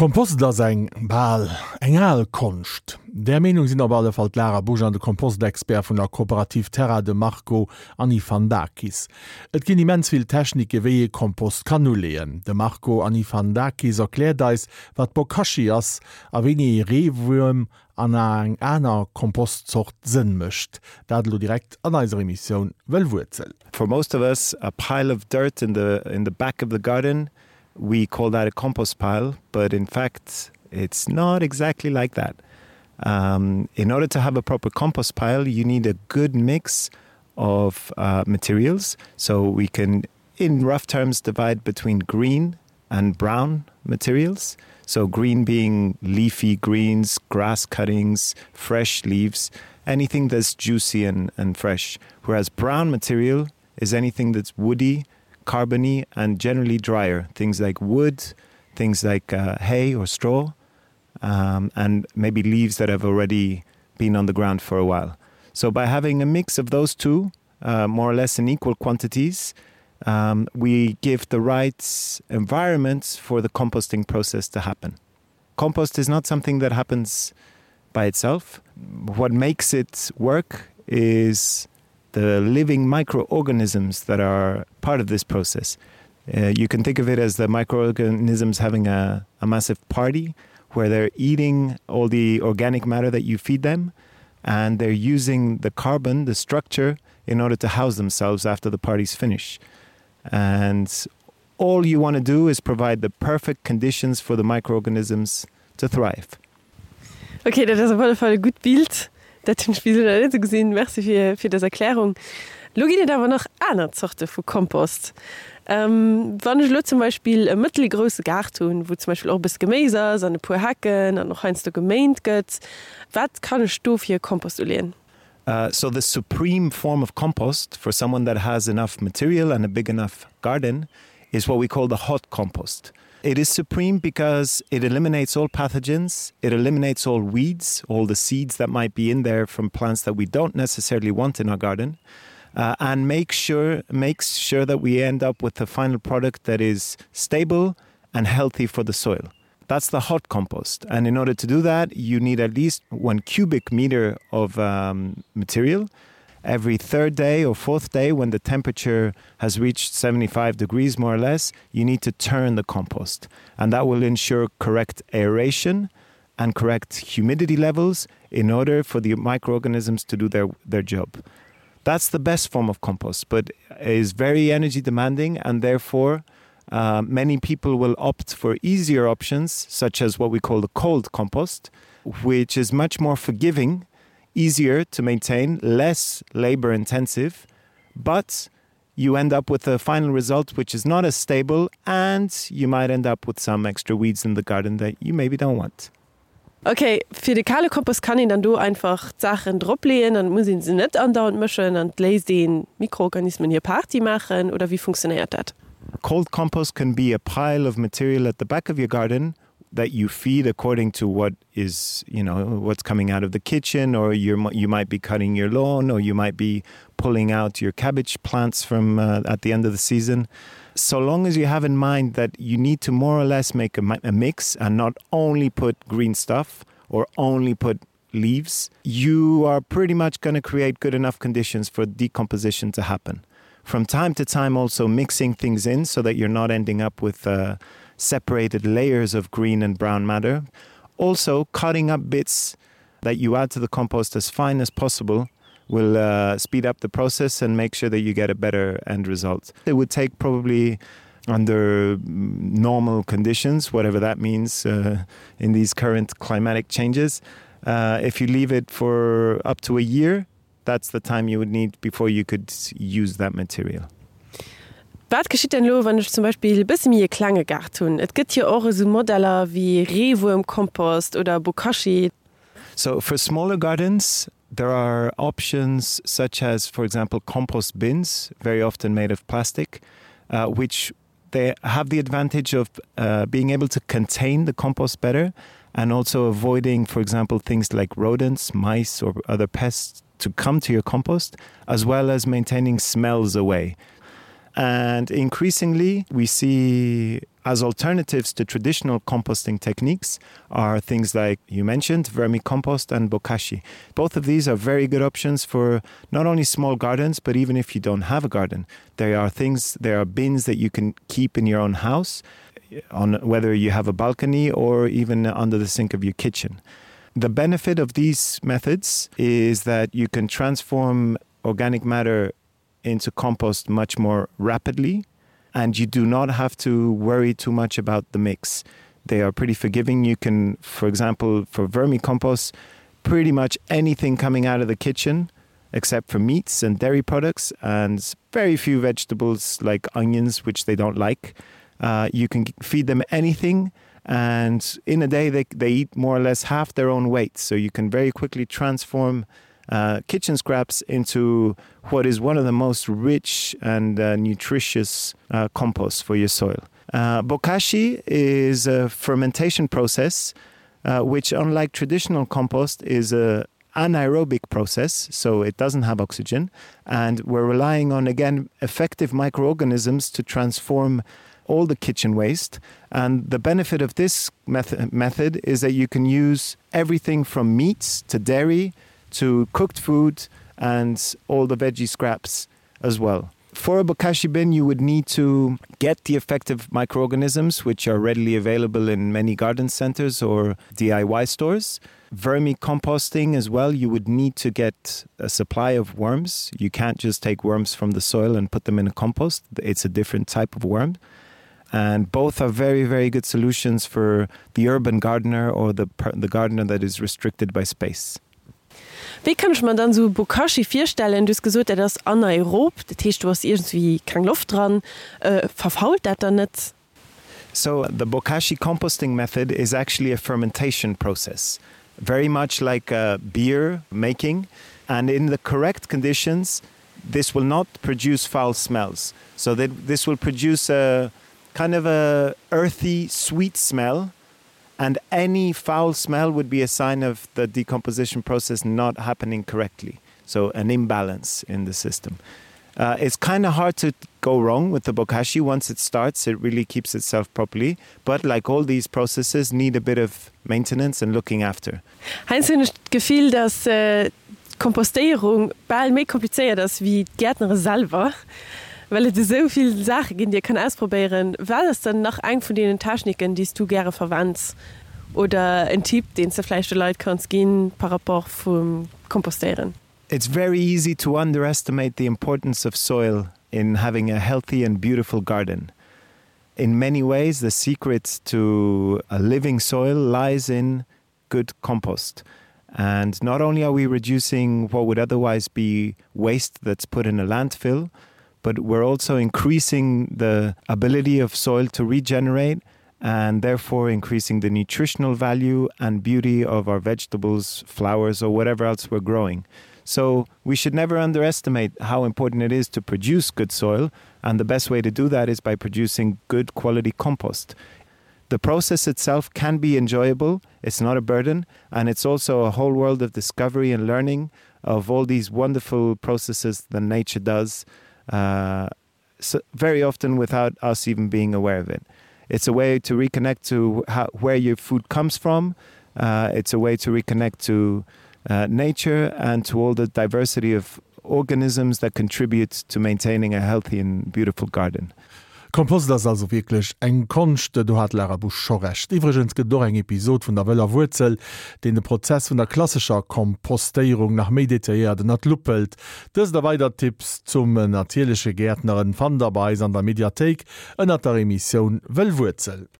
Kompost ass eng, bal eng al Konscht. Där Meenung sinn op alle Fall d'Lara Busch an de Kompostexpert vun der Kooperativ Terra, de Marco Anifandakis. Et ginn immens vill Technike wéi ee Kompost kann uleeën. De Marco Anifandakis erkläert eis wat Bokashi ass a wéini ee Reewuerm an eng aner Kompostzort Sënn mécht. Dat elo direkt an eiser Emissioun Wëll Wuerzel. For most of us a pile of dirt in the in the back of the garden we call that a compost pile, but in fact it's not exactly like that. Um, in order to have a proper compost pile, you need a good mix of uh, materials. So we can, in rough terms, divide between green and brown materials. So green being leafy greens, grass cuttings, fresh leaves, anything that's juicy and, and fresh. Whereas brown material is anything that's woody, carbony and generally drier. Things like wood, things like uh, hay or straw, um, and maybe leaves that have already been on the ground for a while. So by having a mix of those two, uh, more or less in equal quantities, um, we give the right environments for the composting process to happen. Compost is not something that happens by itself. What makes it work is the living microorganisms that are part of this process. Uh, you can think of it as the microorganisms having a, a massive party where they're eating all the organic matter that you feed them and they're using the carbon, the structure, in order to house themselves after the party's finish. And all you want to do is provide the perfect conditions for the microorganisms to thrive. Ok, dat ass op alle Fall e gutt Bild. Dat hunn ech bis elo nach net esou gesinn. Merci fir, fir dës Erklärung. Elo ginn et awer nach aner Zorte vu Kompost. Wann ech elo zum Beispill e mëttelgrousse Gaart hunn, wou zum Beispill och e bësse Geméis ass an e puer Hecken an och heiansdo geméint gëtt, wat kann ech do fir e Kompost uleeën? So the supreme form of compost for someone that has enough material and a big enough garden is what we call the hot compost. It is supreme because it eliminates all pathogens, it eliminates all weeds, all the seeds that might be in there from plants that we don't necessarily want in our garden, uh, and make sure, makes sure that we end up with a final product that is stable and healthy for the soil. That's the hot compost. And in order to do that, you need at least one cubic meter of um, material. Every third day or fourth day, when the temperature has reached 75 degrees more or less, you need to turn the compost. And that will ensure correct aeration and correct humidity levels in order for the microorganisms to do their, their job. That's the best form of compost, but is very energy demanding and therefore, uh, many people will opt for easier options, such as what we call the cold compost, which is much more forgiving, easier to maintain, less labor intensive, but you end up with a final result which is not as stable and you might end up with some extra weeds in the garden that you maybe don't want. Ok, fir de kale Kompost kann een dann do einfach d'Saachen drop leeën an et muss een se net andauernd mëschen an et léisst een d'Mikroorganismen hir Party maachen oder wéi funktionéiert dat? Cold compost can be a pile of material at the back of your garden that you feed according to what is you know what's coming out of the kitchen or you're, you might be cutting your lawn or you might be pulling out your cabbage plants from uh, at the end of the season. So long as you have in mind that you need to more or less make a, a mix and not only put green stuff or only put leaves, you are pretty much going to create good enough conditions for decomposition to happen. From time to time also mixing things in so that you're not ending up with uh, separated layers of green and brown matter. Also cutting up bits that you add to the compost as fine as possible will uh, speed up the process and make sure that you get a better end result. It would take probably under normal conditions, whatever that means uh, in these current climatic changes. Uh, if you leave it for up to a year, that's the time you would need before you could use that material. Wat geschitt denn elo, wann ech zum Beispill e bësse méi e klenge Gaart hunn? Et gëtt jo och esou Modeller wéi Reewuermkompost oder Bokashi. So for smaller gardens, there are options such as, for example, compost bins, very often made of plastic, uh, which they have the advantage of uh, being able to contain the compost better and also avoiding, for example, things like rodents, mice or other pests to come to your compost, as well as maintaining smells away. And increasingly we see as alternatives to traditional composting techniques are things like you mentioned vermicompost and bokashi. Both of these are very good options for not only small gardens, but even if you don't have a garden. There are things there are bins that you can keep in your own house on whether you have a balcony or even under the sink of your kitchen. The benefit of these methods is that you can transform organic matter into compost much more rapidly and you do not have to worry too much about the mix. They are pretty forgiving. You can, for example, for vermicompost, pretty much anything coming out of the kitchen except for meats and dairy products and very few vegetables like onions, which they don't like. Uh, you can feed them anything and in a day they, they eat more or less half their own weight. So you can very quickly transform uh, kitchen scraps into what is one of the most rich and uh, nutritious uh, compost for your soil. Uh, bokashi is a fermentation process, uh, which unlike traditional compost is a anaerobic process, so it doesn't have oxygen. And we're relying on again effective microorganisms to transform all the kitchen waste. And the benefit of this method, method is that you can use everything from meats to dairy, to cooked food and all the veggie scraps as well. For a bokashi bin, you would need to get the effective microorganisms, which are readily available in many garden centers or DIY stores. Vermicomposting as well, you would need to get a supply of worms. You can't just take worms from the soil and put them in a compost. It's a different type of worm. And both are very, very good solutions for the urban gardener or the, the gardener that is restricted by space. Wéi kann ech mer dann esou Bokashi virstellen? Du hues gesot, dat ass anaerob, dat heescht do ass iergendwéi keng Loft dran. Verfault dat dann net? So the bokashi composting method is actually a fermentation process, very much like beer making and in the correct conditions this will not produce foul smells. So that this will produce a kind of a earthy sweet smell and any foul smell would be a sign of the decomposition process not happening correctly so an imbalance in the system uh, it's kind of hard to go wrong with the bokashi once it starts it really keeps itself properly but like all these processes need a bit of maintenance and looking after Heiansdo hunn ech d'Gefill dass d'Kompostéierung bal méi komplizéiert ass wéi d'Gäertnere selwer, well et esou vill Saache ginn déi ee kann ausprobéieren. Wat ass dann nach eng vun deenen Techniken déi s du gäre verwends oder en Tipp deen s de vläicht de Leit kanns ginn par rapport vum Kompostéieren? It's very easy to underestimate the importance of soil in having a healthy and beautiful garden. In many ways, the secret to a living soil lies in good compost. And not only are we reducing what would otherwise be waste that's put in a landfill, but we're also increasing the ability of soil to regenerate and therefore increasing the nutritional value and beauty of our vegetables, flowers, or whatever else we're growing. So we should never underestimate how important it is to produce good soil, and the best way to do that is by producing good quality compost. The process itself can be enjoyable, it's not a burden, and it's also a whole world of discovery and learning of all these wonderful processes that nature does uh, so very often without us even being aware of it. It's a way to reconnect to how, where your food comes from. Uh, it's a way to reconnect to uh, nature and to all the diversity of organisms that contribute to maintaining a healthy and beautiful garden. Kompost ass also wierklech eng Konscht, do hat d'Lara Busch scho Recht. Iwwregens gëtt et och eng Episod vun der wëller Wuerzel, deen de Prozess vun der klassescher Kompostéierung nach méi detailléiert ënnert d'Lupp hëlt. Dëst a weider Tipps zum natierleche Gäertneren fannt der bei eis an der Mediathéik ënnert der Emissioun Wëll Wuerzel.